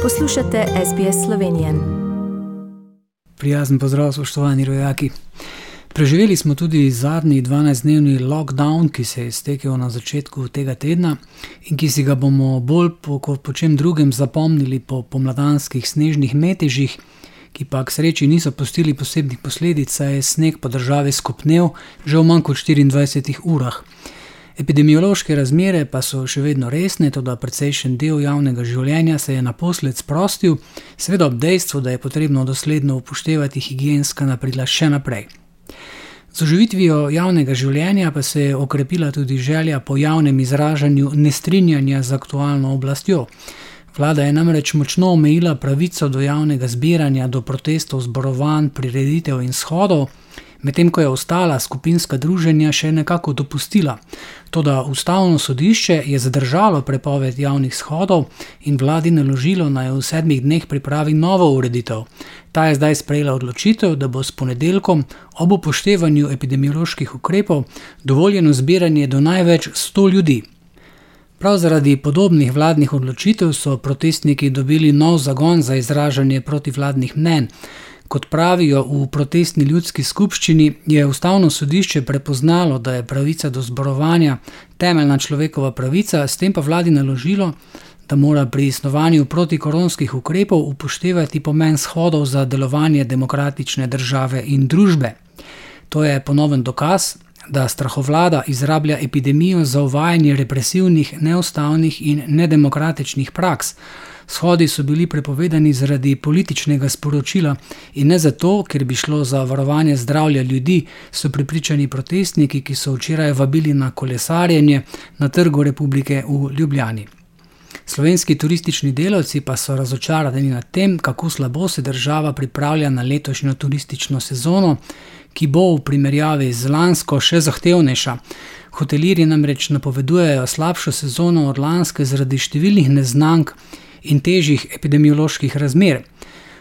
Poslušate SBS Slovenije. Prijazen pozdrav, spoštovani rojaki. Preživeli smo tudi zadnji 12-dnevni lockdown, ki se je iztekel na začetku tega tedna in ki si ga bomo bolj kot po čem drugem zapomnili po pomladanskih snežnih metežih, ki pa k sreči niso pustili posebnih posledic, saj je sneg po državi skopnel že v manj kot 24 urah. Epidemiološke razmere pa so še vedno resne, toda precejšen del javnega življenja se je naposled sprostil, seveda ob dejstvu, da je potrebno dosledno upoštevati higienska napravila še naprej. Z oživitvijo javnega življenja pa se je okrepila tudi želja po javnem izražanju nestrinjanja z aktualno oblastjo. Vlada je namreč močno omejila pravico do javnega zbiranja, do protestov, zborovanj, prireditev in shodov, medtem ko je ostala skupinska druženja še nekako dopustila. Toda Ustavno sodišče je zadržalo prepoved javnih shodov in vladi naložilo, naj v 7 dneh pripravi novo ureditev. Ta je zdaj sprejela odločitev, da bo s ponedeljkom ob upoštevanju epidemioloških ukrepov dovoljeno zbiranje do največ 100 ljudi. Prav zaradi podobnih vladnih odločitev so protestniki dobili nov zagon za izražanje protivladnih mnenj. Kot pravijo v protestni ljudski skupščini, je Ustavno sodišče prepoznalo, da je pravica do zborovanja temeljna človekova pravica, s tem pa vladi naložilo, da mora pri snovanju protikoronskih ukrepov upoštevati pomen shodov za delovanje demokratične države in družbe. To je ponoven dokaz, da strahovlada izrablja epidemijo za uvajanje represivnih, neustavnih in nedemokratičnih praks. Shodi so bili prepovedani zaradi političnega sporočila in ne zato, ker bi šlo za varovanje zdravja ljudi, so prepričani protestniki, ki so včeraj vabili na kolesarjenje na Trgu Republike v Ljubljani. Slovenski turistični delavci pa so razočarani nad tem, kako slabo se država pripravlja na letošnjo turistično sezono, ki bo v primerjavi z lansko še zahtevnejša. Hotelirji namreč napovedujejo slabšo sezono od lanske zaradi številnih neznank in težjih epidemioloških razmer.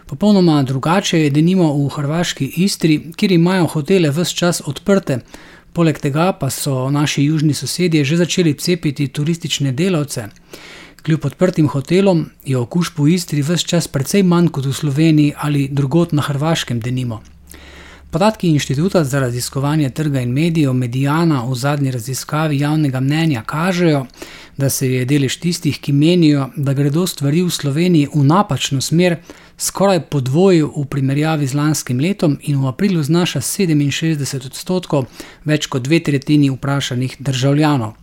Popolnoma drugače je denimo v hrvaški Istri, kjer imajo hotele ves čas odprte. Poleg tega pa so naši južni sosedje že začeli cepiti turistične delavce. Kljub odprtim hotelom je okužb v Istri ves čas precej manj kot v Sloveniji ali drugod na Hrvaškem denimo. Podatki Inštituta za raziskovanje trga in medijev Mediana v zadnji raziskavi javnega mnenja kažejo, da se je delež tistih, ki menijo, da gredo stvari v Sloveniji v napačno smer, skoraj podvojil v primerjavi z lanskim letom in v aprilu znaša 67%, več kot 2/3 vprašanih državljanov.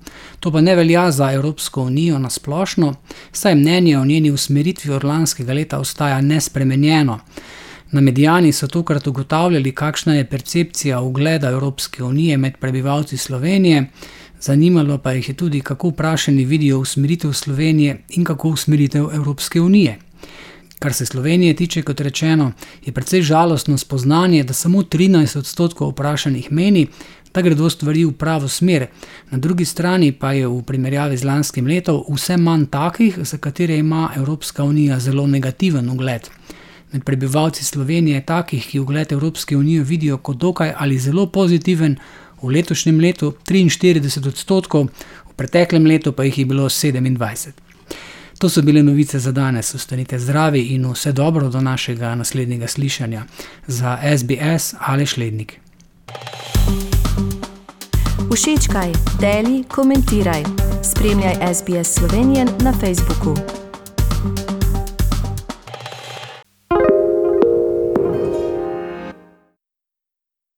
To pa ne velja za Evropsko unijo na splošno, saj mnenje o njeni usmeritvi od lanskega leta ostaja nespremenjeno. Na Mediani so tokrat ugotavljali, kakšna je percepcija ugleda Evropske unije med prebivalci Slovenije, zanimalo pa jih je tudi, kako vprašani vidijo usmeritev Slovenije in kako usmeritev Evropske unije. Kar se Slovenije tiče, kot rečeno, je precej žalostno spoznanje, da samo 13% vprašanih meni, da gredo stvari v pravo smer. Na drugi strani pa je v primerjavi z lanskim letom vse manj takih, za katere ima Evropska unija zelo negativen ugled. Med prebivalci Slovenije je takih, ki ugled Evropske unije vidijo kot dokaj ali zelo pozitiven, v letošnjem letu 43%, v preteklem letu pa jih je bilo 27%. To so bile novice za danes. Ostanite zdravi in vse dobro do našega naslednjega slišanja. Za SBS Aleš Lednik. Všečkaj, deli, komentiraj. Spremljaj SBS Slovenije na Facebooku.